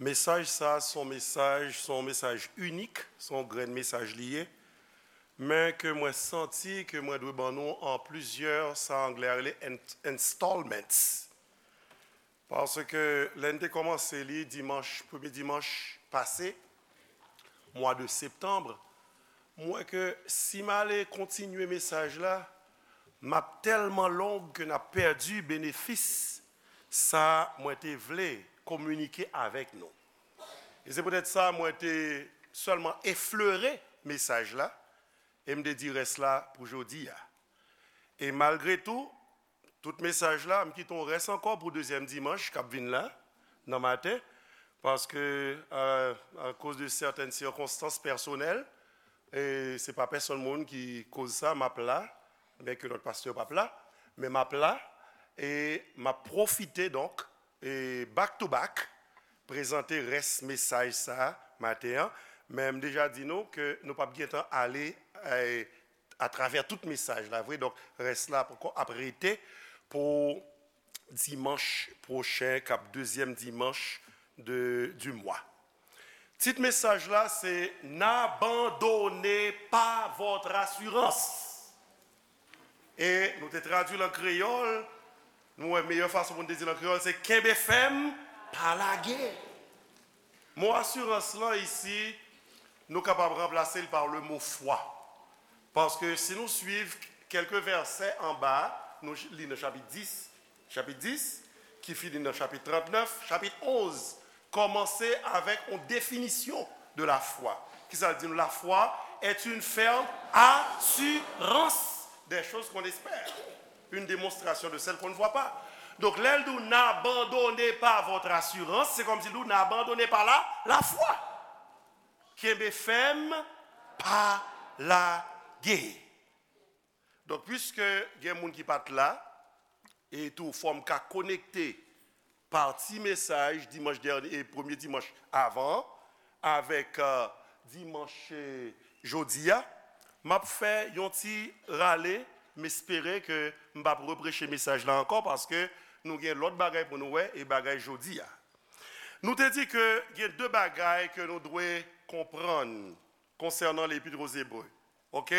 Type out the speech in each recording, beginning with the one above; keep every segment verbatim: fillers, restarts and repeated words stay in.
Mesaj sa a se yon mesaj, se yon mesaj inik, se yon grenn mesaj li ye, men ke mwen santi ke mwen dwe ban nou an plizyè, sa anglè a rele in-, installments. Paske lè n te kòmanse li dimanch, premye dimanch pase, mwa de septanm, m wè ke si m ale kontinye mesaj la, m ap tèlman long ke n ap pèdi benefis sa mwen te vle kominike avèk nou. E se poutèt sa mwen te sèlman eflere mesaj la, e m te di rès la pou jodi a. E malgre tou, tout mesaj la, m kite yon rès ankò pou dezyèm dimanch k ap vin la, nan maten, paske, euh, akoz de sètèn sikonstans pèsonèl, e se pa pèsonn moun ki koz sa, m ap la, byen ke lòt pastè p ap la, men m ap la, e m ap pwofite, donk, e back to back, prezante rès mesaj sa a maten an, men m deja di nou ke nou p ap gentan ale, e, atravè tout mesaj la, vre. Donk, rès la poko ap rete pou dimanch pwochen, k ap dezyèm dimanch de, du mwa. Tit mesaj la, se N'abandonnez pas votre assurance. E nou te tradui l an kreyòl, nou wè meyè fason pou n te di l an kreyòl, se kenbe fèm, pa lage. Mo asirans lan isi, nou kapab ranplase l pa le mo fwa. Paske si nou swiv kèlke vèsè anba, nou li nan chapit dis, chapit dis, ki fini nan chapit trannèf, chapit onz, kòmanse avèk yon definisyon de la foi. Kisa l di nou? La foi est une ferme assurance des choses qu'on espère, une démonstration de celles qu'on ne voit pas. Donk, lè l di w, n'abandonnez pas votre assurance, se kòmsi l di w, n'abandonnez pas la, la foi. Kenbe fèm, pa lage. Donk, piske gen moun ki pa t la, e tou fò m ka konekte pati mesaj dimanch dènye, e premye dimanch avan, avèk, euh, dimanch, euh, jodi a, m ap fè yon ti rale, m espere ke m p ap repreche mesaj la ankò, paske nou gen lòt bagay pou nou wè, e bagay jodi a. Nou te di ke gen de bagay ke nou dwe konprann konsènan Lepit o Ebre. Ok?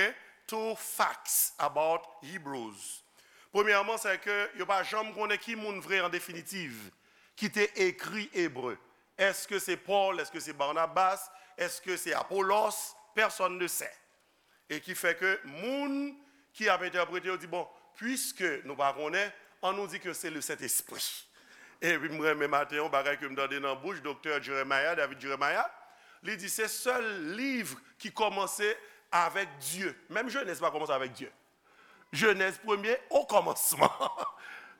Two facts about Hebrews. Premyèman, se ke yo pa janm konnen ki moun vre an definitiv ki te ekri Ebre. Èske se Pòl? Èske se Barnabas? Èske se Apolos? Pèsonn ne sè. E ki fè ke moun ki ap entèprete yo di, bon, piske nou pa konnen, an nou di ke se le Sentespri. Epi m renmen maten yon bagay ke m tande nan bouch Doktè Jeremiah, David Jeremiah, li di se sèl liv ki kòmanse avèk Dye. Menm Jenèz pa kòmanse avèk Dye. Jenèz premye, o kòmansman.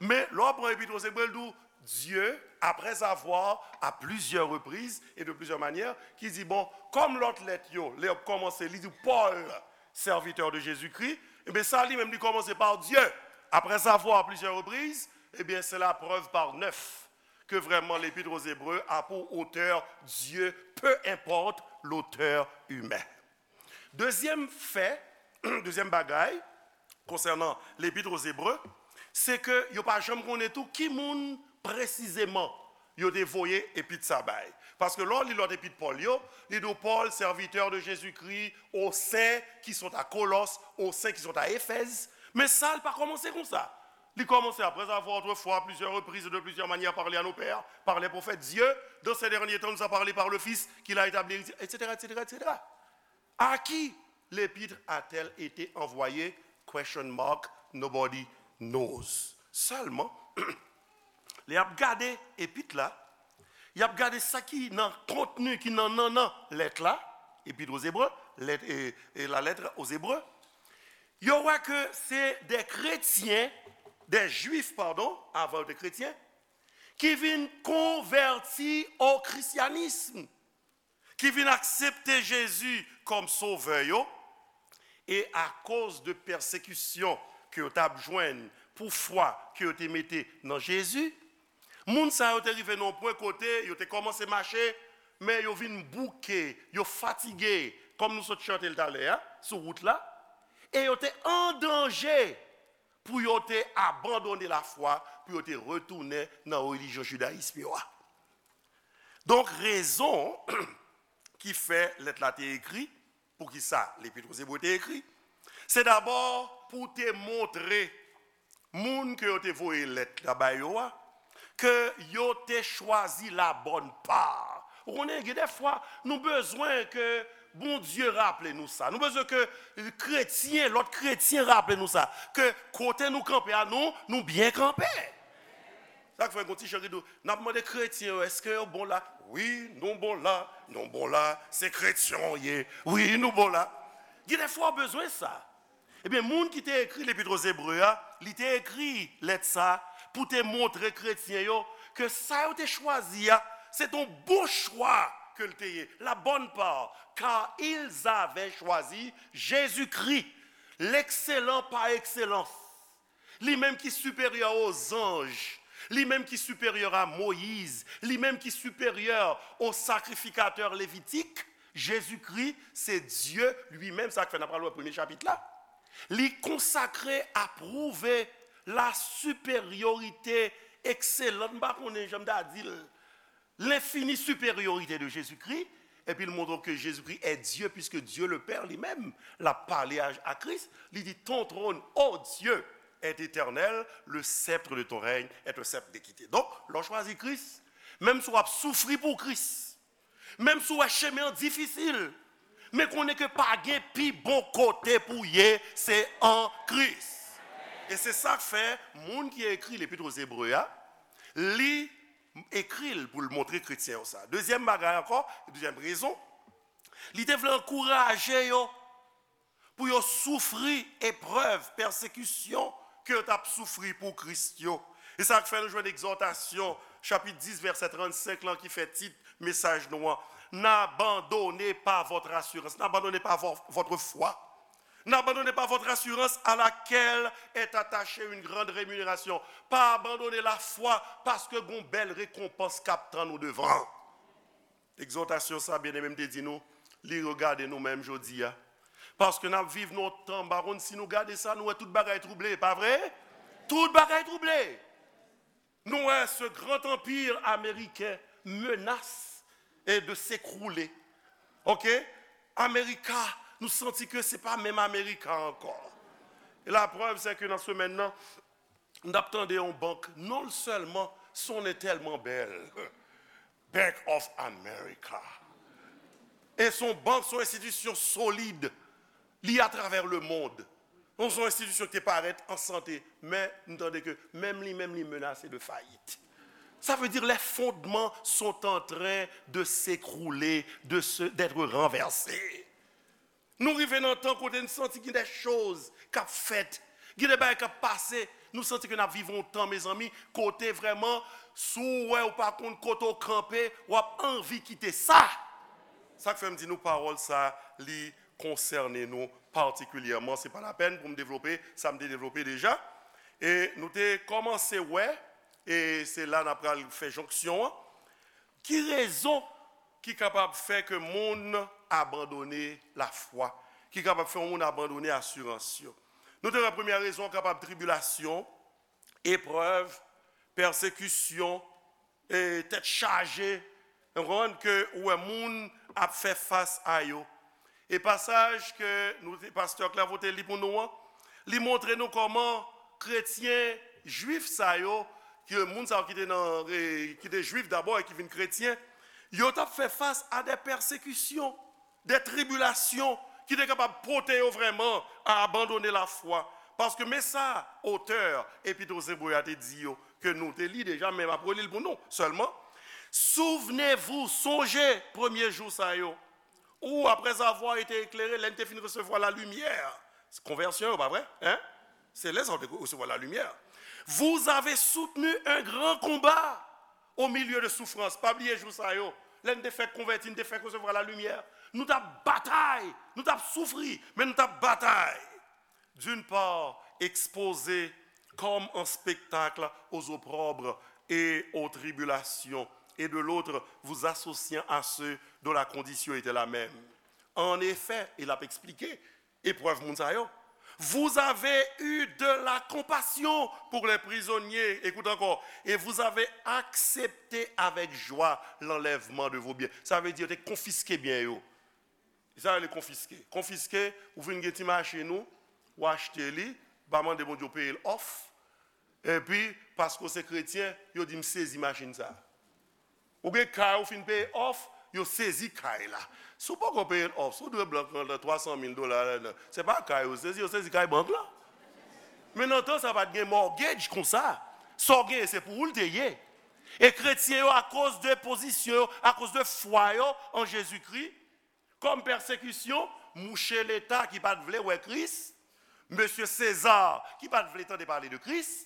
Men, lè w pran Epit o Ebre, l di w, Dieu, après avoir, à plusieurs reprises et de plusieurs manières, ki di, bon, kòm lòt lèt yo, lè y ap kòmanse, li di Paul, serviteur de Jésus-Christ, ebyen, sa li menm, li kòmanse par Dieu. Après avoir, à plusieurs reprises, ebyen, c'est la preuve par neuf que vraiment l'Épître aux Hébreux a pour auteur Dieu, peu importe l'auteur humain. Dezyèm fè, dezyèm bagay, konsènan Lepit o Ebre, se ke yo pa janm konnen tou ki moun presizeman yo te voye epit sa bay. Paske lè w li lòt epit Pòl yo, li di w Paul, serviteur de Jésus-Christ, aux saints qui sont à Colosses, aux saints qui sont à Éphèse. Men sa, l pa kòmanse konsa. Li kòmanse, après avoir autrefois, à plusieurs reprises et de plusieurs manières, parlé à nos pères, par les prophètes, Dieu, dans ces derniers temps, nous a parlé par le Fils, qu'il a établi, et cetera, et cetera, et cetera. À qui l'épître a-t-elle été envoyée? Question mark, nobody knows. Sèlman, lè y ap gade epit la, y ap gade sa ki nan kontni, ki nan nannan lèt la, Épître aux Hébreux, lèt, e, e la lettre aux Hébreux, yo wè ke se de kretyen, de jwif, padon, avan yo te kretyen, ki vin konvèti o krisyanism, ki vin aksepte Jezi kòm sovè yo, e akoz de pèsekisyon ke yo t ap jwenn pou fwa ke yo te mete nan Jezi, moun sa yo te rive nan yon pwen kote yo te kòmanse mache, men yo vin bouke, yo fatige, kòm nou sot chante l talè a, sou wout la, e yo te an danje pou yo te abandone lafwa, pou yo te retounen nan relijyon jidayis yo a. Donk, rezon ki fè lèt la te ekri, poukisa Lepit Ebre te ekri, se dabò pou te montre moun ke yo te voye lèt la ba yo a, ke yo te chwazi la bòn pa. Ou konnen, gen de fwa, nou bezwen ke Bondye raple nou sa. Nou bezwen ke kretyen, lòt kretyen raple nou sa. Ke kote nou kanpe a, nou, nou byen kanpe. Sa k fè gon ti chan ki di w, n ap mande kretyen yo, èske yo bon la? Wi, nou bon la, nou bon la, se kretyen w ye. Wi, nou bon la. Gen de fwa w bezwen sa. Ebyen, moun ki te ekri Lepit Ebre a, li te ekri lèt sa pou te montre kretyen yo ke sa yo te chwazi a, se t on bon chwa ke l te ye, la bonne part, car ils avaient choisi Jésus-Christ, l'excellent par excellence. Li menm ki siperyè o zanj, li menm ki siperyè a Moyiz, li menm ki siperyè o sakrifikatè levitik, Jezikri se Dye li menm, sa k fè n ap pral wè premye chapit la. Li konsakre, apwouve la siperyorite ekselan, m pa konnen jan m ta di l, l'infinie supériorité de Jésus-Christ, epi l montre ke Jezikri est Dieu, puisque Dieu le Père li menm, l ap pale a, a Kris, li di, ton trône, ô Dieu, est éternel, le sceptre de ton règne est un sceptre d'équité. Donk, lè w chwazi Kris, menm si w ap soufri pou Kris, menm si w wè chemen an difisil, men konnen ke pa gen pi bon kote pou w ye, se an Kris. E se sa k fè moun ki ekri Lepit Ebre a, li ekri l pou l montre kretyen yo sa. Dezyèm bagay ankò, dezyèm rezon, li te vle ankouraje yo pou yo soufri eprèv, pèsekisyon ke yo t ap soufri pou Kris yo. E sa k fè nou jwenn Egzòtasyon, chapit dis, vèsè trannsenk lan, ki fè tit mesaj nou an, N'abandonnez pas votre assurance, n'abandonnez pas vo- votre foi. N'abandonnez pas votre assurance à laquelle est attachée une grande rémunération. Pa abandone lafwa, paske gon bèl rekonpans k ap tann ou devan. Egzòtasyon sa, byeneme, m te di nou, li regade nou menm jodi a. Paske n ap viv nan yon tan, m pa konn si nou gade sa, nou wè tout bagay twouble, pa vre? Tout bagay twouble. Nou wè ce grand empire américain menace, eh, de s'écrouler. Ok? Amerika, nou santi ke se pa menm Amerika ankò. E la preuve, c'est que nan semèn nan, n ap tande yon bank, non sèlman son non tèlman bèl, Bank of America. E son bank, son enstitisyon solid, li atravè lemonn. Donk, se yon enstitisyon ki te parèt an sante, men nou tande ke menm li menm, li menase de fayit. Ça veut dire les fondements sont en train de s'écrouler, de se, d'être renversés. Nou rive nan tan kote n santi gen de choz k ap fèt, gen de bagay k ap pase. Nou santi ke n ap viv yon tan, mezanmi, kote vrèman, si w wè ou pa konn kote w kanpe, w ap anvi kite sa. Sa k fè m di nou pawòl sa, li konsène nou patikilyèman. Se pa lapèn pou m devlope sa m te devlope deja. E nou te kòmanse wè, e se la n ap pral fè jonksyon an. Ki rezon ki kapab fè ke moun abandone lafwa, ki kapab fè yon moun abandone asirans yo? Nou te wè premyè rezon an kapab tribilasyon, eprèv, pèsekisyon, e tèt chaje, w konprann, ke ou wè moun ap fè fas a yo. E pasaj ke nou te, pastè Clairvaux te li pou nou an, li montre nou kòman kretyen jwif sa yo, ke moun sa yo ki te nan, e, ki te jwif dabò e ki vin kretyen, yo t ap fè fas a de pèsekisyon, de tribilasyon ki te kapab pote yo vrèman a abandone lafwa. Paske men sa, otè Epit Ebre a te di yo, ke nou te li deja, men m ap reli l pou nou sèlman. Souvenez-vous, sonje premye jou sa yo, où, après avoir été éclairés, lè n te fin resevwa la limyè. Se konvèsyon yo, pa vre? Hein? Se lè sa yo te resevwa la limyè. Vous avez soutenu un grand combat au milieu de souffrances. Pa bliye jou sa yo. Lè n te fèk konvèti, n te fèk resevwa la limyè. Nou t ap batay, nou t ap soufri, men nou t ap batay. D'une part, exposés comme en spectacle aux opprobres et aux tribulations, et de l'autre, vous associant à ceux dont la condition était la même. En effet, e l ap eksplike eprèv moun sa yo. Vous avez eu de la compassion pour les prisonniers. Écoute encore. Et vous avez accepté avec joie l'enlèvement de vos biens. Sa vle di yo te konfiske byen yo. Sa rele konfiske. Konfiske, ou vin gen ti machin ou, ou achte li, pa mande Bondye w peye l off. Epi, paske w se kretyen, yo di m sezi machin sa. Ou gen kay ou fin peye off, yo sezi kay la. Si w poko peye l off, si w dwe bank lan twa san mil dola ladan, se pa kay yo sezi, yo sezi kay bank lan. Men nan tan sa pa t gen mortgage konsa. Sa w genyen se pou ou l te ye. E kretyen yo, akoz de pozisyon yo, akoz de fwa yo an Jezikri, kòm pèsekisyon, mouche Leta ki pa t vle wè Kris, mesye Seza ki pa t vle tande pale de Kris,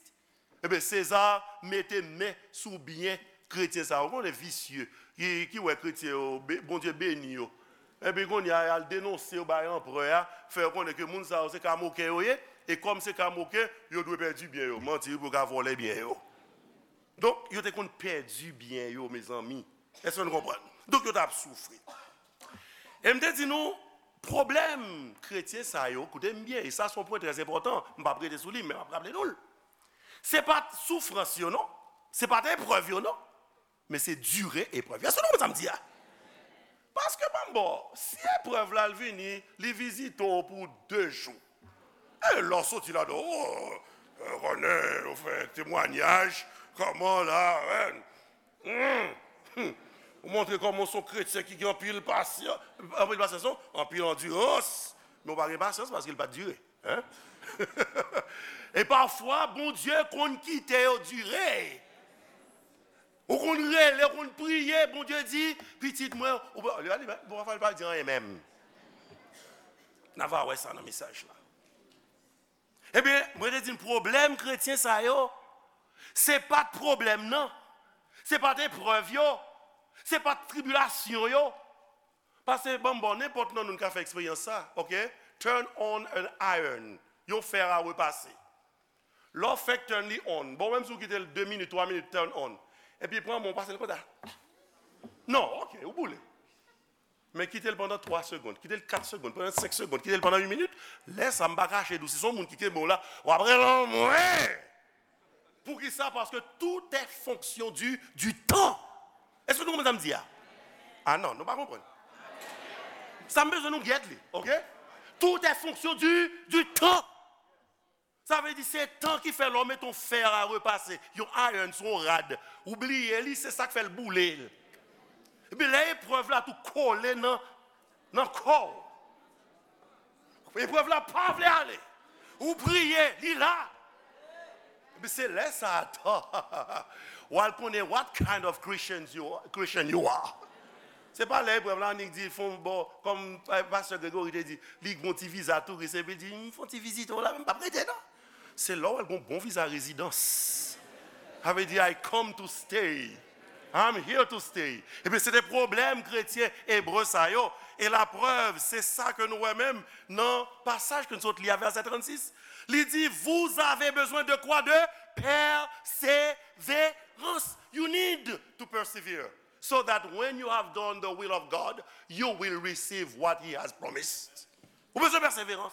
ebyen, Seza mete men sou byen kretyen sa yo. Ou konnen visye, ki, ki wè kretyen yo, be- Bondye beni yo. Epi kounye a, y al denonse yo bay anperè a, fè yo konnen ke moun sa yo se kamoken yo ye, e kòm se kamoken, yo dwe pèdi byen yo. Manti wi, pou yo ka vòlè byen yo. Donk, yo te konn pèdi byen yo, mezanmi. Èske nou konprann? Donk, yo t ap soufri. E m te di nou, pwoblèm kretyen sa yo, koute m byen, e sa se yon pwen trè enpòtan, m p ap rete sou li, men m ap raple nou l. Se pa t soufrans yo, non. Se pa t eprèv yo, non. Men se dire eprèv yo. Èske nou konprann sa m di a? Paske, ban m ba w, si eprèv la, l vini, li vizite w pou de jou. E lè w soti ladan, o, e, konnen, ou fè temwayaj, kòman la, en, hmm, hmm. Ou montre kòman w se yon kretyen ki gen anpil pasyans, anpil pasyans, non, anpil andirans, men w pa gen pasyans paske l pa t dire. Hein? E pafwa, Bondye konn kite yo dire. Ou konn rele, ou konn priye, Bondye di, pitit mwen, ou pa, li pa, li pa, bon, pafwa, li pa di anyen menm. N a va wè sa nan mesaj la. Ebyen, mwen te di n pwoblèm kretyen sa yo, se pa t pwoblèm nan, se pa t eprèv yo, se pa t tribilasyon yo. Pase ban m ba w nenpòt nan nou n ka fè eksperyans sa, ok? Turn on an iron, yon fè a repase. Lè w fèk turn li on, bon, menm si w kite l de minit, twa minit, turn on. Epi pran men w pase l konsa. Non, ok, ou boule. Men kite l pandan twa segonn, kite l kat segonn, pandan senk segonn, kite l pandan uit minit. Lè sa, m pa kache di w, si se yon moun ki kenbe w la, w ap rele anmwe. Poukisa? Paske tout est fonction du, du temps. Èske nou konprann sa m di a? Ah non, nou pa konprann. Sa m bezwen nou gèt li, ok? Tout est fonction du, du temps. Sa vle di se tan ki fè lè w mete yon fè a repase, yon iron sou yon rad, ou bliye li, se sa k fè l boule. Epi lè eprèv la tou kole nan, nan kò w. Eprèv la pa vle ale. Ou priye, li la. Epi se lè sa a, w al konnen what kind of Christians you, Christian you are. Se pa lè eprèv la annik di fon bò, kòm Pastè Gregory te di, li gon ti viza touris, epi di, m fon ti vizite w la, men m p ap rete non. Se lè w al gon bon viza rezidans. Sa vle di, I come to stay. I'm here to stay. Ebyen, se te pwoblèm kretyen ebre sa yo. E laprèv, se sa ke nou wè menm nan pasaj ke n sot li a, vèsè trannsis. Li di, vous avez besoin de quoi? De persévérance. You need to persevere. So that when you have done the will of God, you will receive what He has promised. Ou bezwen pèseverans.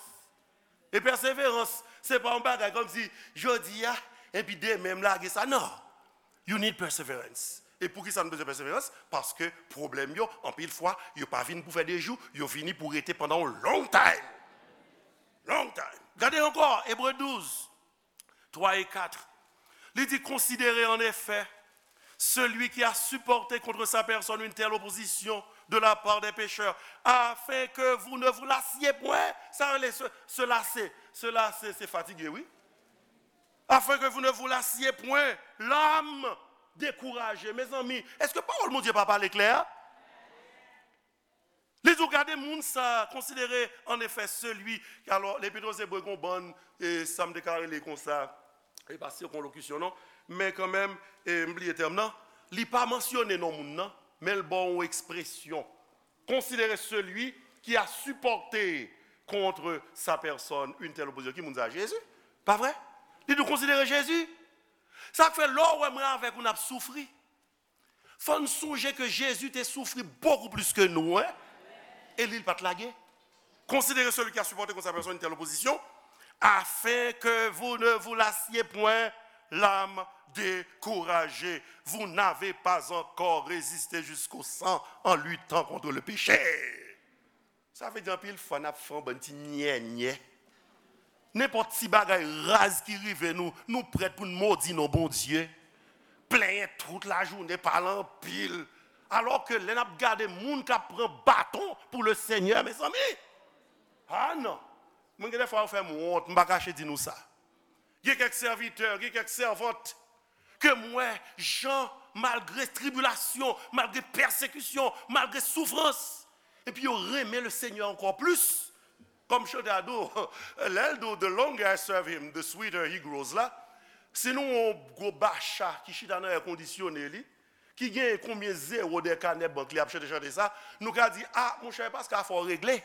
E pèseverans, se pa yon bagay kòmsi jodi a, epi demen m lage sa. Non. You need perseverance. E poukisa nou bezwen pèseverans? Paske pwoblèm yo, anpil fwa, yo pa vin pou fè de jou, yo vini pou rete pandan yon long time. Long time. Gade ankò, Ebre douz, twa e kat. Li di, considérez en effet celui qui a supporté contre sa personne une telle opposition de la part des pécheurs, afin que vous ne vous lassiez point. Sa rele se, se lase. Se lase, se fatige, wi. Afin que vous ne vous lassiez point, l'âme découragée. Mezanmi, èske pawòl Bondye pa pale klè? Li di w, gade moun sa, considérez en effet celui, alò, Lepit Ebre gon bann, e, sa m te ka rele konsa, e pa sirkonlokisyon non, men kanmenm, e, m bliye tèm nan, li pa mansyone non moun nan, men l ba w yon ekspresyon. Considérez celui qui a supporté contre sa personne une telle opposition. Ki moun sa? Jezi. Pa vre? Li di w, considérez Jésus. Sa k fè lè w wè mwen avèk ou n ap soufri, fò n sonje ke Jezi te soufri bokou plis ke nou, en. E li, l pa t lage. Considérez celui qui a supporté contre sa personne une telle opposition, Afin que vous ne vous lassiez point l'âme découragée. Vous n'avez pas encore résisté jusqu'au sang en luttant contre le péché. Sa vle di anpil fwa n ap fè yon bann ti nyènyè. Nenpòt ti bagay raz ki rive nou, nou prèt pou n modi non Bondye. Plenyen tout lajounen, pale anpil. Alò ke lè n ap gade moun k ap pran baton pou le Senyè, mezanmi. Ah non. Mwen gen de fwa yo fè m wont, m pa kache di nou sa. Gen kèk sèvitè, gen kèk sèvant ke m wè jan, malgre tribilasyon, malgre pèsekisyon, malgre soufrans, epi yo renmen le Senyè ankò plis. Kòm chante a di w, lè l di w, "The longer I serve him, the sweeter he grows" la, si nou yon gwo bacha ki chita nan èkondisyone li, ki gen konbyen zewo dèyè kanè bank li ap chante chante sa, nou ka di, "Ah, monchè, paske afè w regle."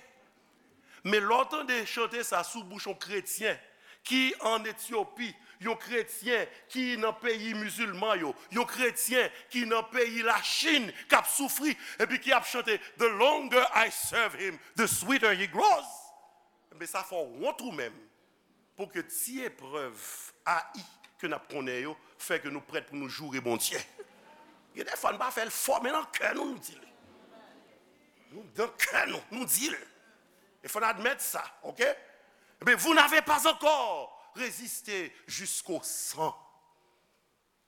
Men lè w tande chante sa sou bouch yon kretyen ki ann Etyopi, yon kretyen ki nan peyi mizilman yo, yon kretyen ki nan peyi Lachin, k ap soufri, epi ki ap chante, "The longer I serve him, the sweeter he grows." Men sa fè w wont ou menm. Pou ke ti eprèv ayi ke n ap konnen yo fè ke nou prèt pou nou joure Bondye. Gen de fwa, n pa fè l fò, men nan kè nou, nou di l. Nou, nan kè nou, nou di l. E fò n admèt sa, oke? Ebyen, vous n'avez pas encore résisté jusqu'au sang.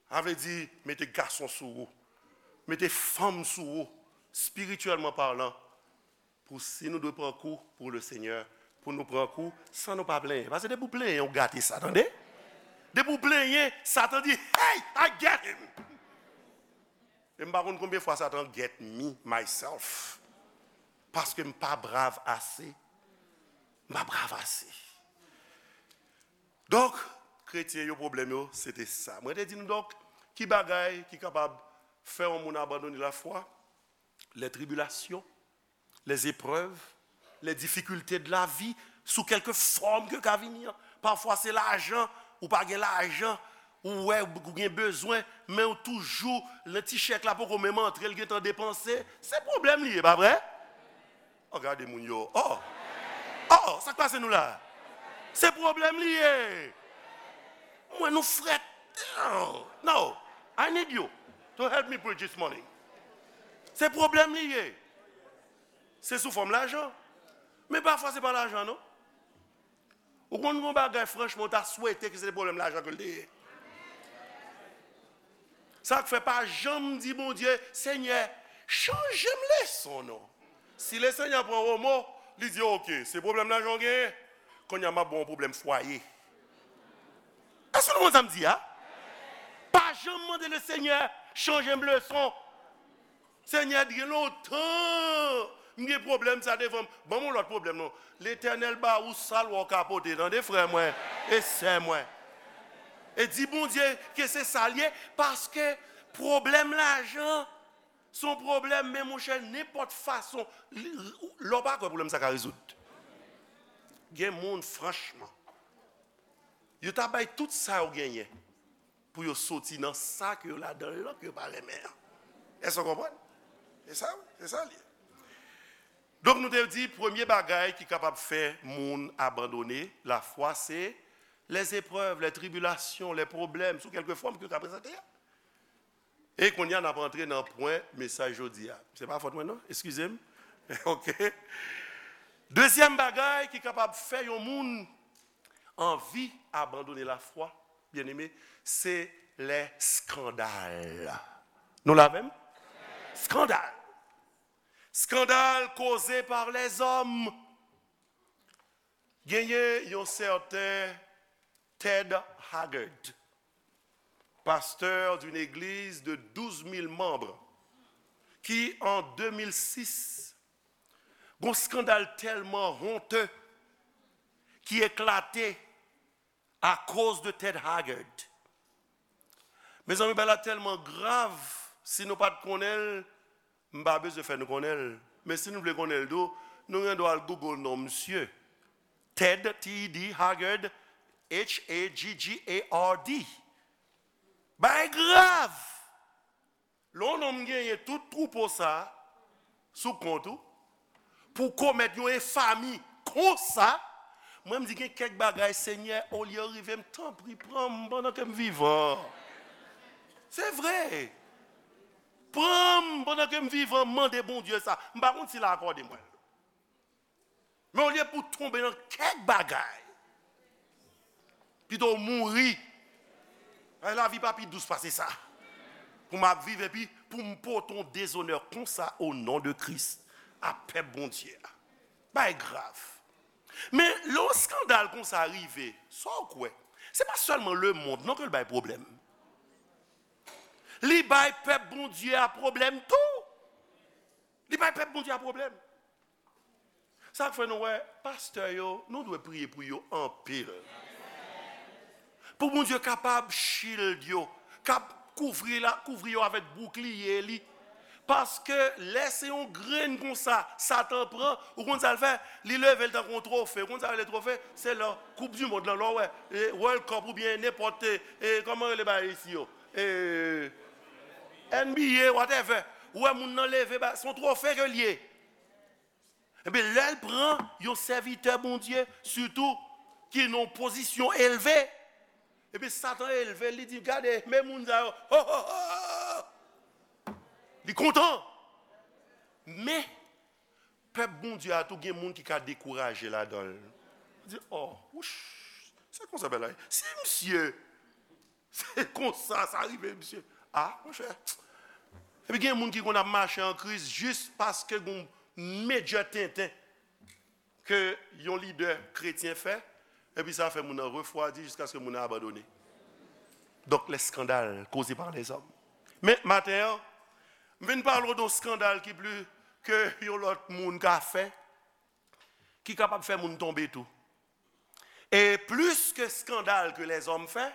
Sa vle di, mete gason sou ou, mete fanm sou ou, espirityèlman palan, pou si nou dwe pran kou pou le Senyè, pou nou pran kou san nou pa plenyen. Paske depi w plenyen, w gate sa, tande? Depi w plenyen, Satan di, "Hey, I get him!" E m pa konn konbyen fwa Satan get me, myself. Paske m pa brav ase. M pa brav ase. Donk, kretyen yo, pwoblèm yo, se te sa. Mwen te di nou donk, ki bagay ki kapab fè yon moun abandone lafwa? Les tribulations, les épreuves, les difficultés de la vie, sou kèlke fòm ke ka vini an. Pafwa se lajan, ou pa gen lajan, ou wè ou gen bezwen, men ou toujou, lè ti chèk la poko menm antre, l gentan depanse. Se pwoblèm li ye, pa vre? Oh, gade moun yo. Oh! Oh, sa k pase nou la? Se pwoblèm li ye. Mwen, nou frèt. Oh, no. I need you to help me preach this morning. Se pwoblèm li ye. Se sou fòm lajan. Men pafwa, se pa lajan, non. Ou konn gon bagay, franchman, ou ta swete ke se te pwoblèm lajan ke l te ye. Sa k fè pa janm di Bondye, "Senyè, chanje m leson, non." Si le Senyè pran womo, li di, "Oke, se pwoblèm lajan w genyen, kounye a m ap ba w yon pwoblèm fwaye." Èske nou konn sa m di a? Pa janm mande le Senyè, "Chanje m leson." Senyè, gen lontan m gen pwoblèm sa devan m. Ban m yon lòt pwoblèm, non. Letènèl ba ou sa l wè w ka pote, tande, frè mwen e sè mwen. E di Bondye ke se sa l ye, paske pwoblèm lajan, se yon pwoblèm, men monchè, nenpòt fason, li, lè w pa kwè pwoblèm sa ka rezoud. Gen moun, franchman, yo ta bay tout sa yo genyen pou yo soti nan sa ke yo ladan l lan ke yo pa renmen an. Èske w konprann? Se sa, wi, se sa l ye. Donk, nou te di, premye bagay ki kapab fè moun abandone lafwa, se les épreuves, les tribulations, les problèmes, sou kèlke fòm ke yo ka prezante a. E kounye a, n ap antre nan pwen mesaj jodi a. Se pa fòt mwen, non? Eskize m. Oke. Dezyèm bagay ki kapab fè yon moun anvi abandone lafwa, byeneme, se les scandales. Nou la avè m? Skandal. Skandal koze par les hommes. Genyen yon sèten Ted Haggard, pasteur d'une église de douze mille membres, ki an de mil sis, gon skandal tèlman honteux ki eklate akoz de Ted Haggard. Mezanmi, bagay la tèlman grav, si nou pa t konnen l, m pa bezwen fè nou konnen l. Men si nou vle konnen l tou, nou gen dwa al Google non misye. Ted, T E D, Haggard, H A G G A R D. Bagay grav! Lè yon nonm genyen tout twoupo sa a sou kont ou, pou w komèt yon enfami konsa, Mwen, m di gen kèk bagay, Senyè, olye yo rive m, tanpri, pran m pandan ke m vivan. Se vre. Pran m pandan ke m vivan, mande Bondye sa. M pa konn si l a akòde mwen l. Men olye pou w tonbe nan kèk bagay, pito w mouri. Ay, lavi pa pi dous pase sa. Pou m ap viv epi pou m pote yon dezonè konsa o non de Kris a pèp Bondye a. Bay grav. Men lè yon eskandal konsa rive, sa w kwè? Se pa sèlman lemonn non ke l bay pwoblèm. Li bay pèp Bondye a pwoblèm tou. Li bay pèp Bondye a pwoblèm. Sa k fè nou wè pastè yo, nou dwe priye pou yo anpil. Pou Bondye kapab shield yo, kap kouvri la, kouvri yo avèk boukliye li. Paske lè se yon grenn konsa, Satan pran, ou konn sa l fè? Li leve l tankou yon twofe. Ou konn sa rele twofe? Se lè Koup di Mond lan, lè w wè, e, World Cup oubyen nenpòt, e, e, kòman rele bagay isi yo? E, N B A, whatever. Ou wè moun nan leve, ba, se yon twofe ke l ye. Ebyen, lè l pran yon sèvitè Bondye, sitou, ki nan yon pozisyon elve, ebyen, Satan elve l, li di, gade, men moun sa yo, ho, ho, ho! Li kontan. Men, pèp Bondye a tou gen moun ki ka dekouraje ladan l. Di, oh, wouch, se konsa bagay la ye. Si misye Se konsa sa rive, misye. Ah, monchè. Epi gen moun ki konn ap mache an Kris jis paske gen yon medya tenten ke yon lidè kretyen fè, epi sa fè moun nan refwadi jiskaske moun nan abandone. Donk, lè eskandal koze pa lèzòm. Men, maten an, m vin pale w de yon eskandal ki pli ke yon lòt moun ka fè, ki kapab fè moun tonbe tou. E plis ke eskandal ke lèzòm fè,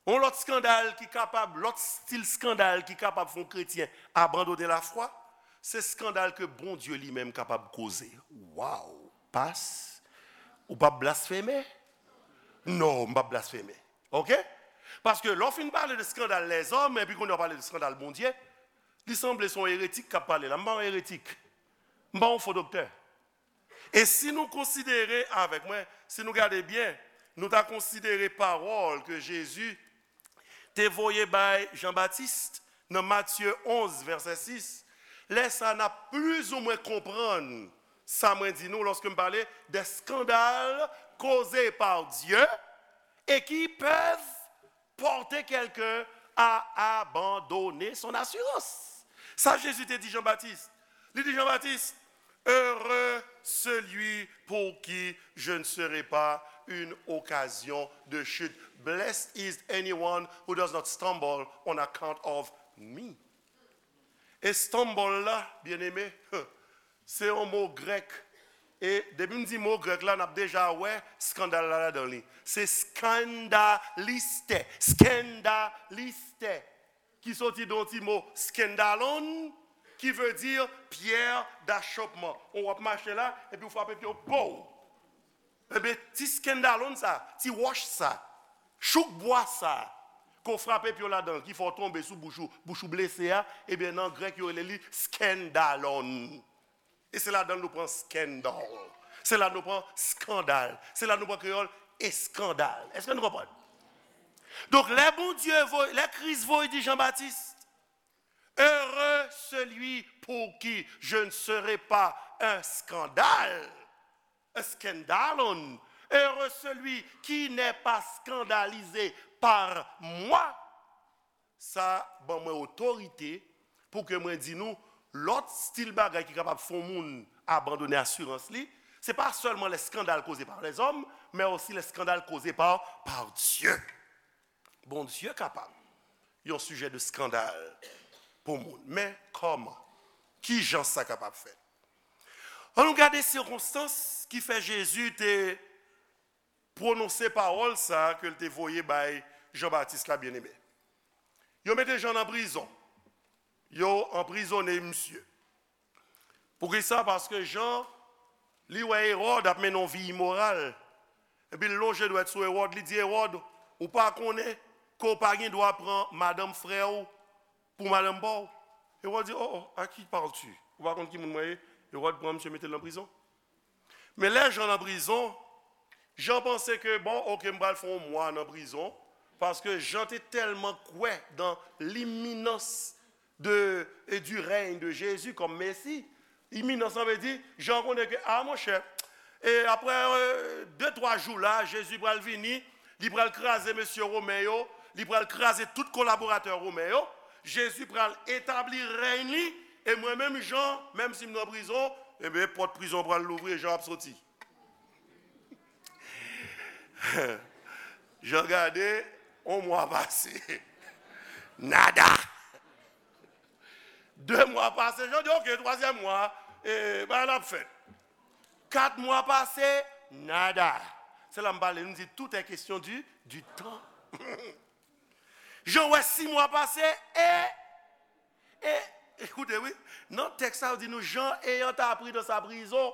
yon lòt eskandal ki kapab, lòt estil eskandal ki kapab fè yon kretyen abandone lafwa, se eskandal ke Bondye li menm kapab koze. Waw! Pas, ou p ap blasfeme? Non, m p ap blasfeme. Oke? Paske lè w fin pale de eskandal lèzòm, epi kounye a w pale de eskandal Bondye, li sanble se yon eretik k ap pale la. M pa yon eretik. M pa yon fo doktè. E si nou konsidere avèk mwen, si nou gade byen, nou ta konsidere pawòl ke Jezi te voye bay Jan Batis nan Matye onz, vèsè sis, lè sa a n ap plizoumwen konprann sa mwen di nou lòske m pale de eskandal koze pa Dye e ki peuvent porter quelqu'un à abandonner son assurance. Sa Jezi te di Jan Batis. Li di Jan Batis, heureux celui pour qui je ne serai pas une occasion de chute. Blessed is anyone who does not stumble on account of me. E stumble la, byeneme, se yon mo grèk. E depi m di mo grèk la, n ap deja wè eskandal la ladan li. Se skandaliste, skandaliste, ki soti de yon ti mo skandalon, ki vle di pyè dachopman. Ou w ap mache la, epi w frape pye w, pow! Ebyen, ti skandalon sa, ti wòch sa, chouk bwa sa, ke w frape pye w ladan l, ki fè w tonbe sou bouch ou, bouch ou blese a, ebyen, nan grèk, yo rele li skandalon. E se ladan l nou pran scandal. Se la nou pran eskandal. Se la nou pran kreyòl eskandal. Èske nou konprann? Donk, lè Bondye voye, lè Kris voye di Jan Batis, heureux celui pour qui je ne serai pas un scandale, un scandalon, heureux celui qui n'est pas scandalisé par moi. Sa ban mwen otorite pou ke mwen di nou, lòt estil bagay ki kapab fè yon moun abandone asirans li, se pa sèlman lè eskandal koze pa lèzòm, men osi lè eskandal koze pa, pa Dye. Bondye kapab yon sijè de eskandal pou moun. Men kòman? Ki jan sa kapab fèt? Ann nou gade sikonstans ki fè Jezi te pwononse pawòl sa a ke l te voye bay Jan Batis la, byeneme. Yo mete Jan nan prizon. Yo anprizone misye. Poukisa? Paske Jan, li wè Ewòd ap mennen yon vi imoral. Epi l lonje dwèt sou Ewòd, li di, Ewòd, ou pa konnen ke w pa gen dwa pran madanm frè w pou madanm pa w? Ewòd di, oh, oh, à qui parles-tu? Ou pa konn ki moun mwen ye? Ewòd pran misye, mete l nan prizon. Men lè Jan nan prizon, Jan panse ke, bon, oke, m pral fè yon mwa nan prizon, paske Jan te tèlman kwè dans l'imminence de, et du règne de Jésus comme Messie. Iminans lan vle di, Jan konnen ke, a, monchè, e apre, euh, de, twa jou la, Jezi pral vini, li pral kraze mesye Women yo, li pral kraze tout kolaboratè Women yo, Jezi pral etabli rèy li, e mwen menm, Jan, menm si m nan prizon, ebyen, pòt prizon pral louvri e Jan ap soti. Jan gade, yon mwa pase. Nada. De mwa pase, Jan di, oke, twazyèm mwa, e, bagay la ap fèt. Kat mwa pase, nada. Se la m pale, nou di, tout est question du, du temps. Jan wè sis mwa pase, e, e, ekoute, wi, nan tèks sa, yo di nou, Jean ayant appris dans sa prison,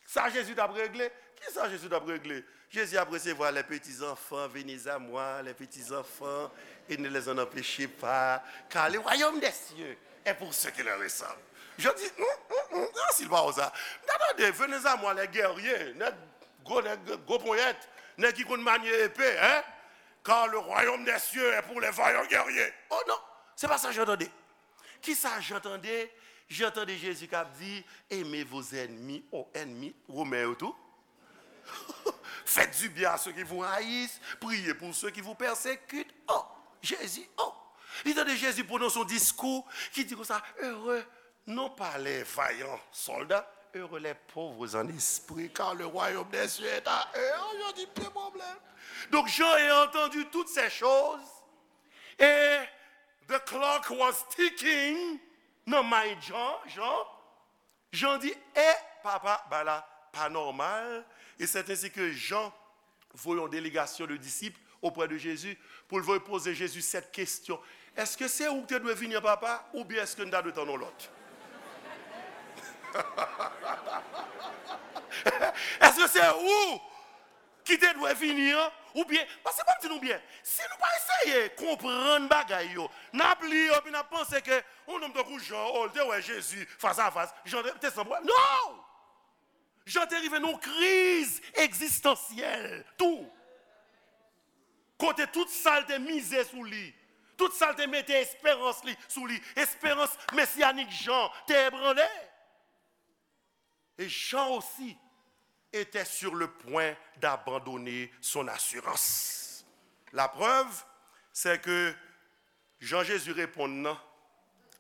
sa Jezi t ap regle? Kisa Jezi t ap regle? Jezi ap resevwa les petits enfants, venez à moi, les petits enfants, et ne les en empêchez pas, car le royaume des cieux est pour ceux qui leur ressemblent. Jan di, hmm, hmm, hmm, ansi l pawòl sa. M ta tande, venez à moi, les guerriers, nèg gwo, nèg gwo ponyèt, nèg ki konn manye epe, hein? Car le royaume des cieux est pour les vaillants guerriers. Oh non, se pa sa Jan tande. Kisa Jan tande? Jan tande Jezi k ap di, aimez vos ennemis. Oh, ènmi, Women yo tou. Faites du bien à ceux qui vous haïssent, priez pour ceux qui vous persécutent. Oh, Jezi, oh. Li tande Jezi pwononse yon diskou ki di konsa, heureux, non pas les vaillants soldats, heureux les pauvres en esprit, car le royaume des cieux est à eux. Oh, Jan di, pye pwoblèm. Donc, Jean ayant entendu toutes ces choses, et the clock was ticking, nan mind Jan, Jan, Jan di, e papa, bagay la pa nòmal, et c'est ainsi que Jean voye yon délégation de disciples auprès de Jésus pou l voye poze Jezi sèt kesyon. Èske se ou ki te dwe vini an, papa, oubyen èske n ta dwe tann yon lòt? Èske se ou ki te dwe vini an, oubyen, paske ban m di nou byen, si nou pa eseye konprann bagay yo, n ap li yo, epi n ap panse ke yon nonm tankou Jan, oh, li te wè Jezi fas a fas, Jan te, te san pwoblèm. Non! Jan te rive nan yon kriz egzistansyèl tou. Kote tout sa l te mize sou li, tout sa l te mete esperans li sou li, esperans mesiyanik Jan te ebranle. Et Jean aussi était sur le point d'abandonner son assurance. La preuve, c'est que Jan Jezi reponn nan,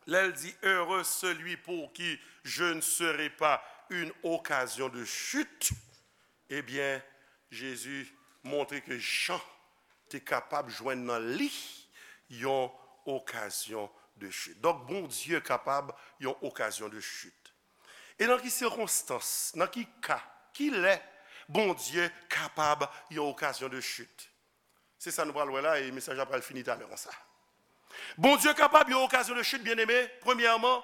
lè l di, heureux celui pour qui je ne serai pas une occasion de chute, ebyen, Jezi montre ke Jan te kapab jwenn nan li yon okazyon de chit. Donk, Bondye kapab yon okazyon de chit. E nan ki sikonstans, nan ki ka, ki lè Bondye kapab yon okazyon de chit? Se sa nou pral wè la, e mesaj la pral fini talè konsa. Bondye kapab yon okazyon de chit, byeneme, premyèman,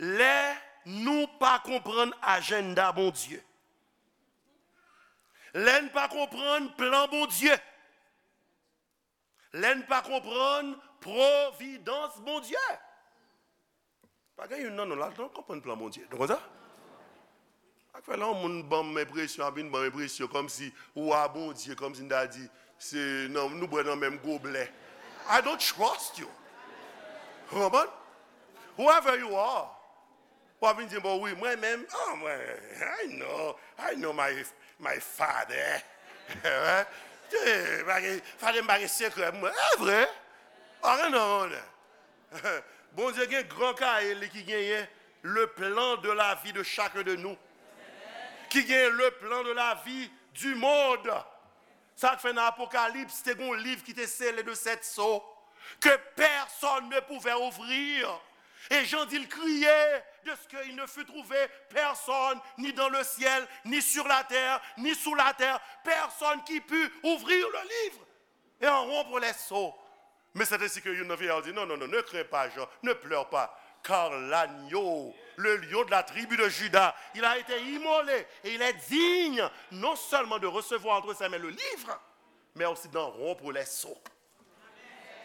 lè nou pa konprann ajannda Bondye. Lè n pa konprann plan Bondye. Lè n pa konprann pwovidans Bondye. Pa gen youn nan nou la, nou konprann plan Bondye. Nou konn sa? Sa k fè lè yon moun ban m enpresyon, ap vin ban m enpresyon kòmsi wa Bondye, kòmsi n ta di, se nan, nou bwè nan menm goblè. I don't trust you. Ou konprann? Whoever you are. W ap vin di, bon, wi, mwen menm, ah, mwen, I know, I know my, my father. Eh, pa gen, father m pa gen sekrè mwen. E vre? Pa gen non, non. Bondye gen gran kaye li ki genyen le plan de la vie de chacun de nous. Ki genyen le plan de la vie du monde. Sa k fè nan Apokalips, te gen yon liv ki te sele de sèt so, que personne ne pouvait ouvrir. Et Jean dit, il criait de ce qu'il ne fut trouvé personne, ni dans le ciel, ni sur la terre, ni sous la terre, personne qui put ouvrir le livre et en rompre les sceaux. Men se te si ke youn nan vye a di, non, non, non, ne crains pas, Jean, ne pleure pas, car l'agneau, le lion de la tribu de Juda, il a été immolé et il est digne non seulement de recevoir entre ses mains le livre, mais aussi d'en rompre les sceaux.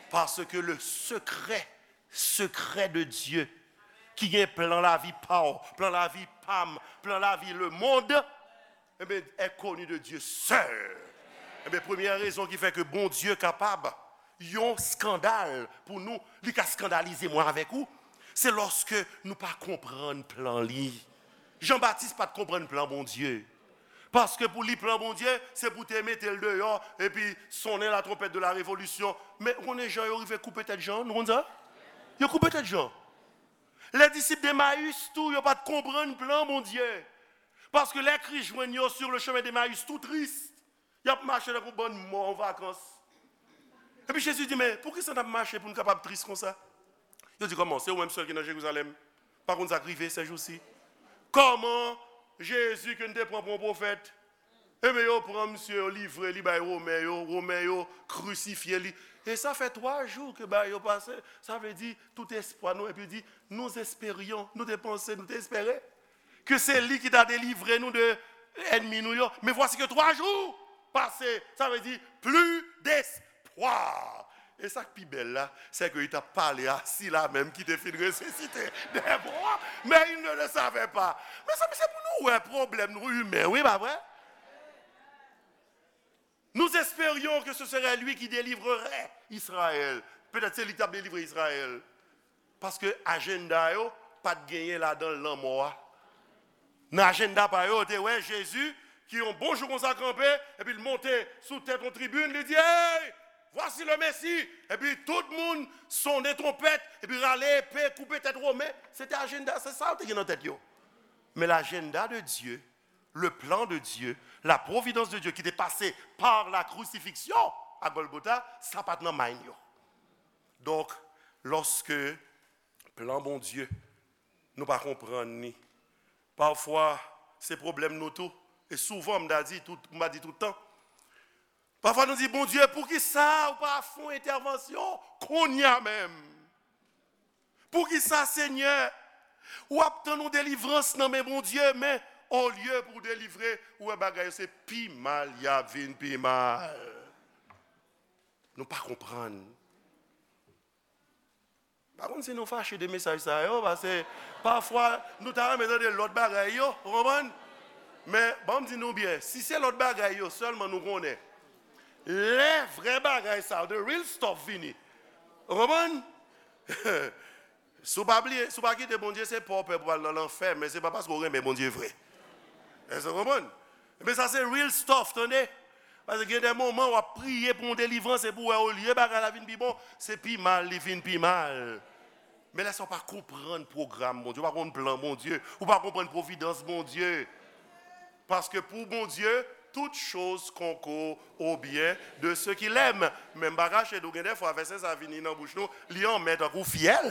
Parce que le secret, secret de Dieu, ki gen plan lavi pa w, plan lavi pa m, plan lavi lemonn, Ebyen, est connu de Dieu seul. Ebyen, premyè rezon ki fè ke Bondye kapab yon eskandal pou nou, li ka eskandalize mwen avèk ou, se lòske nou pa konprann plan li. Jan Batis pa t konprann plan Bondye. Paske pou li, plan Bondye, se pou te mete l deyò, epi sonnen la trompette de la révolution. Men, ou konnen jan yo rive koupe tèt Jan, nou konn sa? Yo koupe tèt Jan. Lè disip Demayis tou, yo pa t konprann plan Bondye. Paske lè Kris jwenn yo sur le chemin d'Emmaüs, tou tris, y ap mache tankou bann mò an vakans. Epi Jezi di, men poukisa n ap mache pou n kapab tris konsa? Yo di, kòman, se ou menm sèl ki nan Jerizalèm? Pa konn sa k rive sèjousi? Kòman Jezi ke n te pran pou yon pwofèt? Ebyen, yo pran misye, yo livre li bay Women yo, Women yo krisifye li. E sa fè twa jou ke bagay yo pase, sa vle di, tout espwa nou, epi di, nous espérions, nou te panse, nou te espere ke se li ki ta delivre nou de ènmi nou yo. Men vwasi ke twa jou pase, sa vle di, plus d'espoir. E sa k pi bèl la, se ke li t ap pale a sila menm ki te fin resisite dè mò, mais il ne le savait pas. Mezanmi, se pou nou wè pwoblèm nou imen, wi, pa vre? Nous espérions que ce serait lui qui délivrerait Israël. Petèt se li ki t ap delivre Izrayèl. Paske ajenda yo pa t genyen ladan l lanmò a. Nan ajenda pa yo, yo te wè Jezi ki yon bon jou konsa kanpe, epi l monte sou tèt yon tribin, li di, hey, voici le Messie! Epi tout moun sonnen twonpèt, epi rale epe, koupe tèt Women. Se te ajenda, se sa yo te gen nan tèt yo. Men l'agenda de Dieu, le plan de Dieu, la providence de Dieu ki te pase par la crucifixion à Golgotha, sa pa t nan mind yo. Donk, lòske plan Bondye, nou pa konprann li, pafwa, se pwoblèm nou tou. E souvan, m ta di tout, m pa di tout tan, pafwa nou di, Bondye, poukisa ou pa fè yon entèvansyon kounye a menm? Poukisa, Senyè, w ap tann yon delivrans nan men Bondye, men olye pou w delivre, ou wè bagay yo se pi mal y ap vin pi mal. Nou pa konprann. Pa konn si nou fache de mesaj sa yo, paske pafwa nou ta renmen tande lòt bagay yo, ou konprann? Men, ban m di nou byen, si se lòt bagay yo sèlman nou konnen, lè vrè bagay sa yo, the real stuff vini, ou konprann? Si w pa bliye, si w pa kite Bondye, se pa w pè pou al nan lanfè, men se pa paske w renmen Bondye vre. Èske w konprann? Men sa se real stuff, tande. Paske gen de moman w ap priye pou yon delivrans, epi w wè olye bagay la vin pi bon, se pi mal li vin pi mal. Men lè sa w pa konprann pwogram Bondye, ou pa konprann plan Bondye, ou pa konprann pwovidans Bondye. Paske pou Bondye, toutes choses concourent au bien de ceux qui l'aiment. Men m pa kache di w, gen de fwa vèsè sa vini nan bouch nou, li anmè tankou fyèl.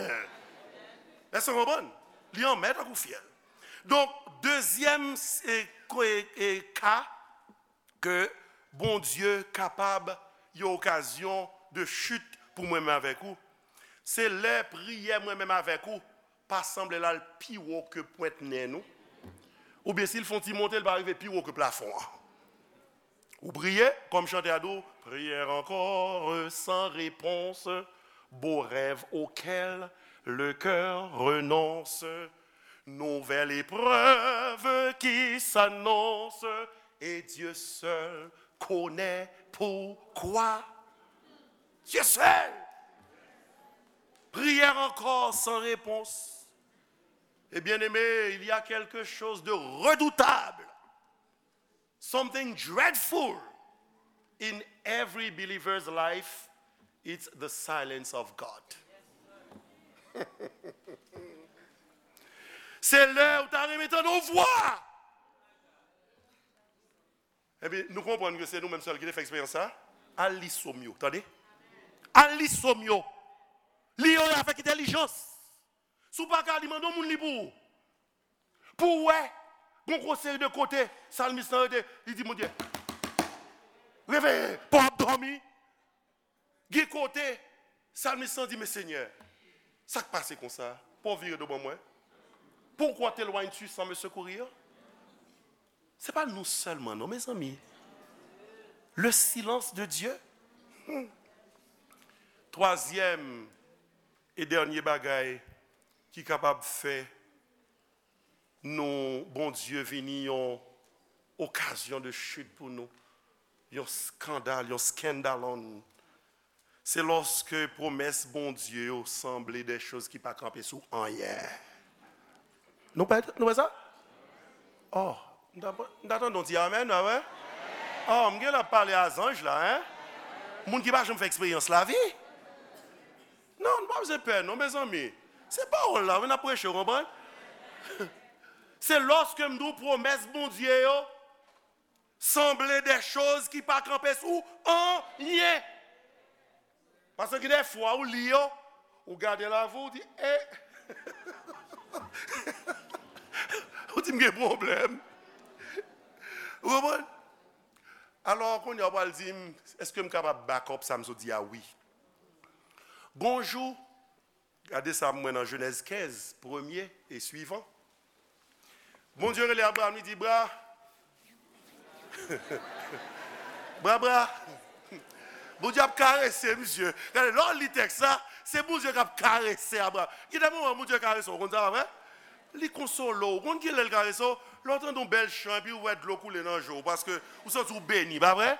Èske w konprann? Li anmè tankou fyèl. Donk, dezyèm, e, ko-, e, e, ka ke Bondye kapab yon okazyon de chute pou mwen menm avèk ou, se lè priyè mwen menm avèk ou pa sanble l al pi wo ke pwent nen nou, oubyen si l fè yon ti monte, l pa rive pi wo ke plafon an. Ou priye, kòm chantè a di w, prière encore sans réponse, beau rêve auquel le cœur renonce, nouvelle épreuve qui s'annonce, et Dieu seul connaît pourquoi. Dieu seul. Prière encore sans réponse. Et bien-aimé, il y a quelque chose de redoutable, something dreadful in every believer's life, it's the silence of God. Se lè ou ta renmen tande yon vwa. Epi nou konprann ke se nou menm sèl ki te fè eksperyans sa. Al li Sòm yo, tande. Al li Sòm yo. Li yo avèk entèlijans. Si w pa ka li, mande yon moun li pou ou. Pou w wè, gon gwo seri de kote, salmis lan rete, li di, Bondye, reveye, pa w ap dòmi. Gen kote, salmis lan di, men Senyè, sa k pase konsa? Pa w vire do ban mwen? Pourquoi t'éloignes-tu sans me secourir? Se pa nou sèlman, non, mezanmi. Le silence de Dieu. Hmm. Twazyèm e dènye bagay ki kapab fè nou, Bondye vini yon okazyon de chit pou nou, yon skandal, yon scandalon, se lòske pwomès Bondye yo sanble de choz ki pa kanpe sou anyen. Nou pa, nou pa sa? Oh, m ta, m ta tande yon ti amèn, pa vre? Oh, m gen la pale a zanj la, hein? Moun ki pa janm fè eksperyans lavi. Non, nou pa bezwen pè, non, mezanmi. Se pawòl la, wi, n ap preche, w konprann? Se lòske m di w pwomès Bondye yo sanble de choz ki pa kanpe sou anyen. Paske gen de fwa ou li yo, ou gade lavi, ou di, e. Ou di, m gen pwoblèm. Ou konprann? Alò, kounye a, w pral di m, èske m kapab back up sa m sot di a? Wi. Gon jou, gade sa m wè nan Jenèz kenz, premye e swivan. Bondye rele Abraram, li di, Bra, Bra, bra. Bondye ap karese misye. Gade, lè w li tèks la, se Bondye k ap karese Abraram. Gen de moman Bondye karese w, w konn sa, pa vre? Li konsole w. Ou konn ki lè l karese w? Lè w tande yon bèl chan epi w wè dlo koule nan je w, paske ou santi w beni, pa vre?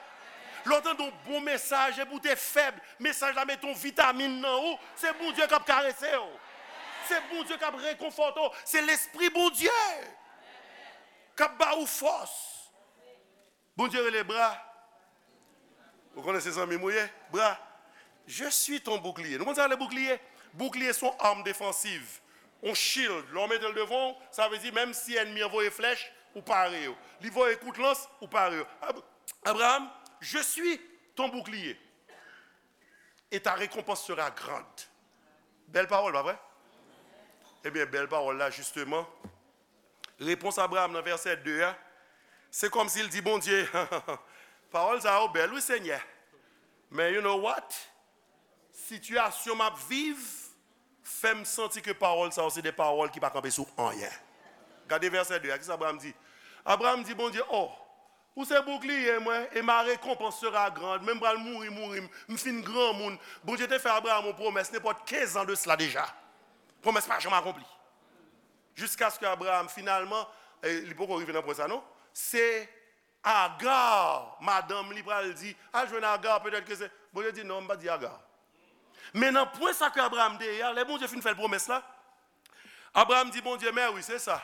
Lè w tande yon bon mesaj epi w te fèb, mesaj la mete yon vitamin nan ou, se Bondye k ap karese w. Se Bondye k ap rekonfòte w. Se Lespri Bondye k ap ba ou fòs. Bondye rele Bra. Ou konnen se zanmi m ou ye? Bra, je suis ton bouclier. Nou konn sa rele boukliye? Boukliye se yon arm defansiv. Yon shield. Lè w mete l devan w, sa vle di menm si ènmi an voye flèch, ou pare yo. Li voye kout lans, ou pare yo. Ab-, Abraham, je suis ton bouclier. Et ta récompense sera grande. Bèl pawòl, pa vre? Ebyen, bèl pawòl la, jisteman, repons Abraram nan vèsè de a, se kòmsi l di Bondye, pawòl sa yo bèl, wi, Senyè. Men you know what? Sitiyasyon m ap viv fè m santi ke pawòl sa yo se de pawòl ki pa kanpe sou anyen. Gade vèsè de a, kisa Abraram di? Abraram di Bondye, o, ou se boukliye mwen, et ma récompense sera grande. Men m pral mouri, mouri, m, m fin granmoun. Bondye te fè Abraram yon pwomès, nenpòt kenz an de sila deja. Pwomès pa janm akonpli. Jiskaske Abraram, finalman, e, li poko rive nan pwen sa, non. Se Agar, madanm li, pral di, al jwenn Agar, petèt ke se. Bondye di, non, m pa di Agar. Men nan pwen sa ke Abraram te ye a, lè Bondye fin fè l pwomès la, Abraram di Bondye, men wi, se sa.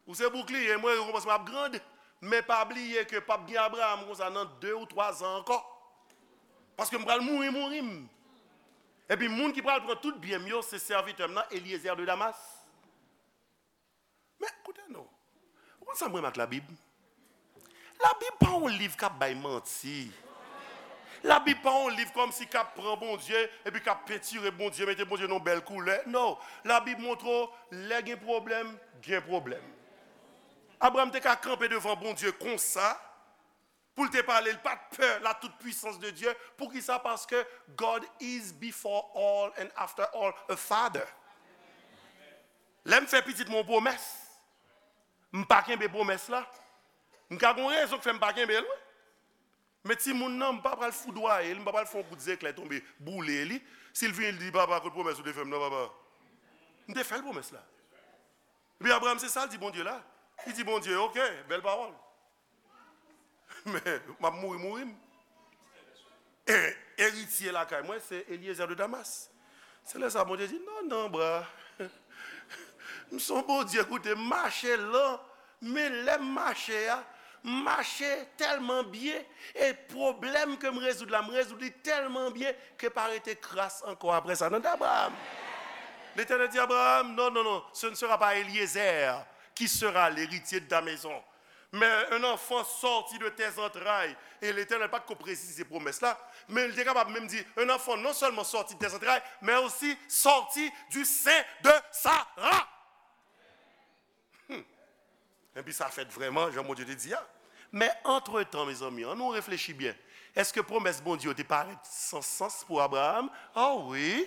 Ou se boukliye mwen, rekonpans mwen ap grand. Men pa bliye ke p ap gen Abraram konsa nan de ou twa zan ankò. Paske m pral mouri, mouri m. Epi moun ki pral pran tout byen m yo, se sèvitè m nan, Eliezer de Damas. Men, koute non. Ou konn sa m renmen ak Labib? Labib pa yon liv k ap bay manti. Labib pa yon liv kòmsi k ap pran Bondye, epi k ap pentire Bondye, mete Bondye nan yon bèl koulè. Non. Labib montre w, lè gen pwoblèm, gen pwoblèm. Abraram te ka kanpe devan Bondye konsa, pou l te pale, li pa t pè la toute puissance de Dieu. Poukisa? Paske God is before all and after all a father. Lè m fè pitit mwen yon pwomès, m pa kenbe pwomès la, m ka gon rezon k fè m pa kenbe l, wi. Men timoun nan, m pa pral foudwaye li, m pa pral fè yon kout zeklè tonbe, boule li. Si l vini, li di, papa, kot pwomès ou te fè m nan, papa? M te fè l pwomès la. Epi Abraram, se sa l di Bondye la. Li di Bondye, oke, bèl pawòl. Men, m ap mouri, mouri m. E, eritye lakay mwen, se Eliezer de Damas. Se lè sa Bondye di, non, non, bra. M se yon Bondye, koute, m mache lan, men lè m mache a, m mache tèlman byen, e pwoblèm ke m rezoud la, m rezoud li tèlman byen ke pa rete kras ankò apre sa nan Abraram. Letènèl di Abraram, non, non, non, ce ne sera pas Eliezer qui sera l'héritier de ta maison. Mais un enfant sorti de tes entrailles. E Letènèl pa t ko presize pwomès la, men li te kapab menm di, un enfant non seulement sorti de tes entrailles, mais aussi sorti du sein de Sarah. Hmm. Epi sa fèt vrèman, jan Bondye te di a. Men antretan, mezanmi, ann nou reflechi byen. Èske pwomès Bondye yo te parèt san sans pou Abraram? O wi.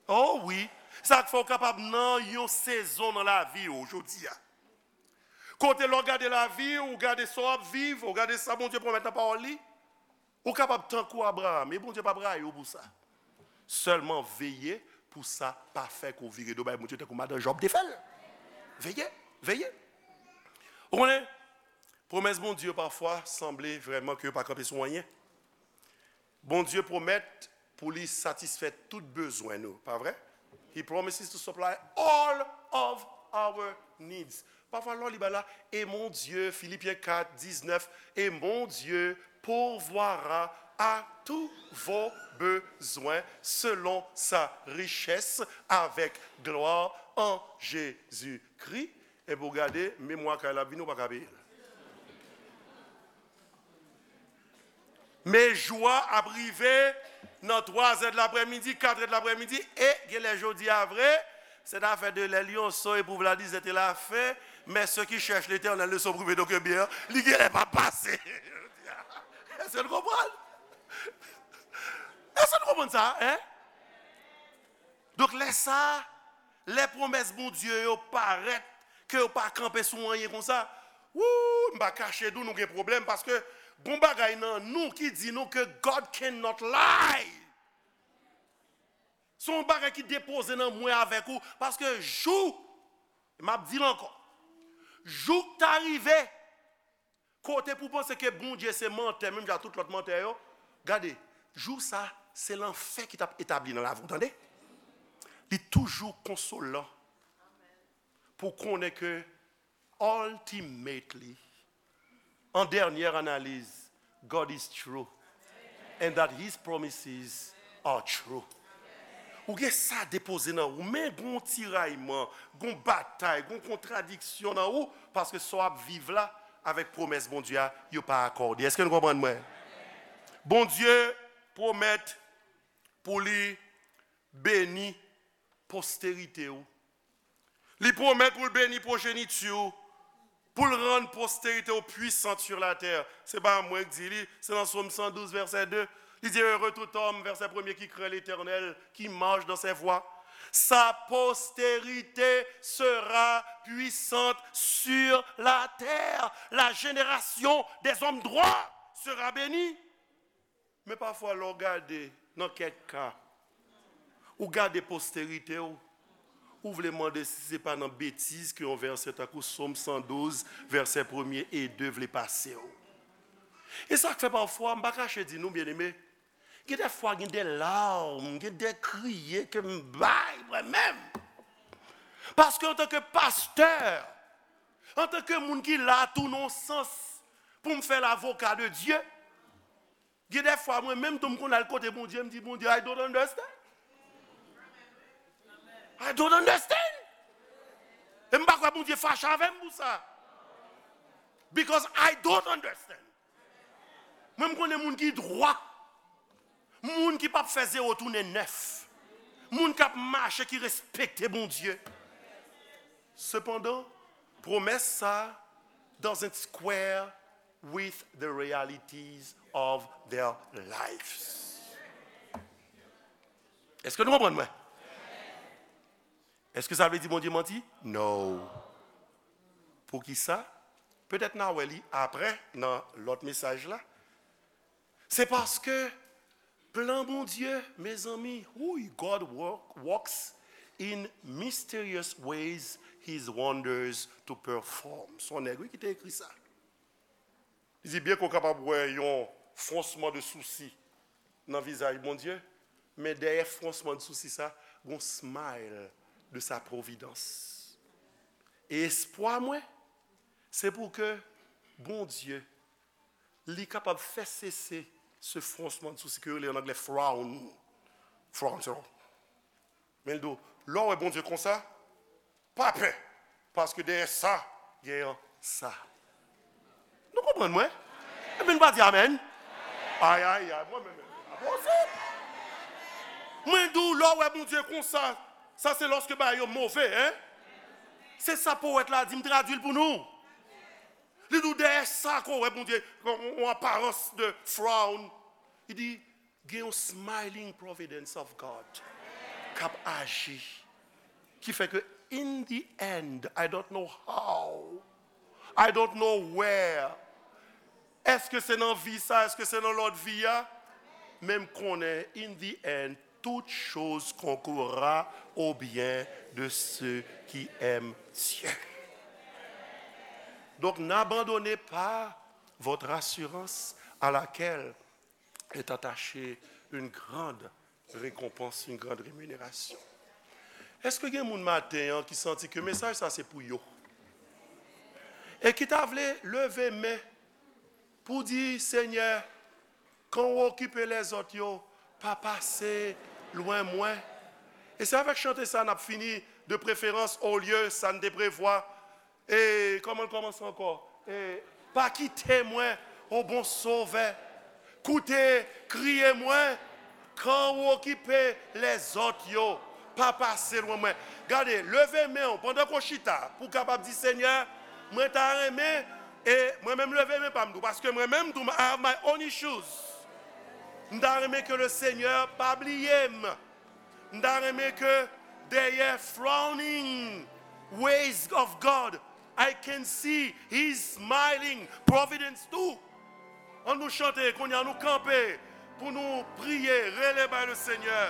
O wi. Sa k fè w kapab nan yon sezon nan lavi w jodi a. Kote lè w gade lavi w, ou gade sa w ap viv, ou gade sa Bondye pwomèt nan pawòl li, ou kapab tankou Abraram, e Bondye p ap rayi w pou sa. Sèlman veye pou sa pa fè ke w vire do bay Bondye tankou madan Jòb te fè l. Veye, veye. Ou konnen, Pwomès Bondye yo pafwa sanble vrèman ke yo pa kanpe sou anyen. Bondye pwomèt pou li satisfè tout bezwen nou, pa vre? He promises to supply all of our needs. Pafwa lè w li ba la, et mon Dieu, Philippiens quatre, dix-neuf, et mon Dieu pourvoira à tous vos besoins selon sa richesse avec gloire en Jésus-Christ. Epi w gade, memwa kay la ap vini, ou pa ka peye l. Men jou a ap rive nan twa zè de laprèmidi, kat è de laprèmidi, e genlè jodi a vre, cette affaire de les lionceaux et pour Vladis était la fin, mais ceux qui cherchent l'Éternel ne sont privés d'aucun bien, li genlè p ap pase. Èske nou konprann? Èske nou konprann sa, en? Donk, lè sa, lè pwomès Bondye yo parèt, ke yo pa kanpe sou anyen konsa, wou, m pa kache di w nou gen pwoblèm, paske gon bagay nan nou ki di nou ke God cannot lie. Se yon bagay ki depoze nan mwen avèk ou, paske jou, m ap di l ankò, jou k ta rive, kote pou panse ke Bondye se mantè, menm jan tout lòt mantè yo, gade, jou sa, se lanfè ki t ap etabli nan lavi w, tande? Li toujou konsolan pou konnen ke ultimately, an dènyè analiz, God is true and that his promises are true. Ou gen sa depoze nan ou, men gon tirayman, gon batay, gon kontradiksyon nan ou, paske sa w ap viv la avèk pwomès Bondye a, yo pa akòde. Èske nou konprann mwen? Bondye pwomèt pou li beni posterite w. Li pwomèt pou l beni pwojeniti w, pou l rann posterite w pwisan sur la tè. Se pa mwen k di li, se nan Sòm san douz, vèsè de. Li di, Heureux tout homme, vèsè premye, qui craint l'Éternel, qui marche dans ses voies. Sa postérité sera puissante sur la terre. La génération des hommes droits sera bénie. Men pafwa, lè w gade nan kèk ka, ou gade posterite w, ou vle mande si se pa nan betiz ke yon vèsè tankou Sòm san douz, vèsè premye e de vle pase w. E sa k fè pafwa, m pa kache di nou, byeneme, gen de fwa, gen de larm, gen de kriye ke m bay mwen menm. Paske antanke pastè, antanke moun ki la tou nan yon sans pou m fè lavoka de Dye, gen de fwa, mwen menm tou, m konn al kote Bondye, m di, Bondye, I don't understand. I don't understand. E m pa kwè Bondye fache avè m pou sa. Because I don't understand. Mwen, m konnen moun ki dwa. Moun ki p ap fè zewo tounen nèf. Moun k ap mache, ki respekte Bondye. Sepandan, pwomès sa doesn't square with the realities of their lives. Èske nou konprann mwen? Èske sa vle di Bondye manti? No. Poukisa? Petèt n a wè li apre nan lòt mesaj la. Se paske plan Bondye, mezanmi, wi, God work, works in mysterious ways his wonders to perform. Se yon nèg, wi, ki te ekri sa. Li di, byen ke w kapab wè yon fronsman de sousi nan vizaj Bondye, men dèyè fronsman de sousi sa, gon smile de sa providence. E espwa mwen, se pou ke Bondye, li kapab fè sese se fronsman de sousi ke yo rele an anglè frown. Frown, se Men l di w, lè w wè Bondye konsa, pa pè, paske dèyè sa, gen yon sa. Nou konprann mwen? Ebyen, nou pa di amèn? Ay, ay, ay, mwen menm, menm, pa posib. Mwen di w, lè w wè Bondye konsa, sa se lòske bagay yo move, en? Se sa powèt la di, m tradui l pou nou. Li di w, dèyè sa ke w wè Bondye, yon, yon aparans de frown. Li di, gen yon smiling providence of God k ap aji, ki fè ke in the end, I don't know how, I don't know where, èske se nan vi sa, èske se nan lòt vi a, men m konnen, in the end, toute chose concourra au bien de ceux qui aiment Dieu. Donc, n'abandonnez pas votre assurance à laquelle est attachée une grande récompense, une grande rémunération. Èske gen moun maten an ki santi ke mesaj sa se pou yo? E ki ta vle leve men pou di, Senyè, kan w okipe lèzòt yo, pa pase lwen mwen. E se avèk chante sa n ap fini, de preferans, olye sa n te prevwa. E kòman l kòmanse ankò? E pa kite mwen, o bon Sovè. Koute kriye mwen, kan w okipe lèzòt yo, pa pase lwen mwen. Gade, leve men w pandan ke w chita, pou w kapab di, Senyè, mwen ta renmen, e mwen menm leve men pa m tou, paske mwen menm tou, I have my own issues. M ta renmen ke le Senyè pa bliye m. M ta renmen ke dèyè frowning ways of God, I can see His smiling providence too. An nou chante, kounye a nou kanpe pou nou priye, rele bay le Senyè.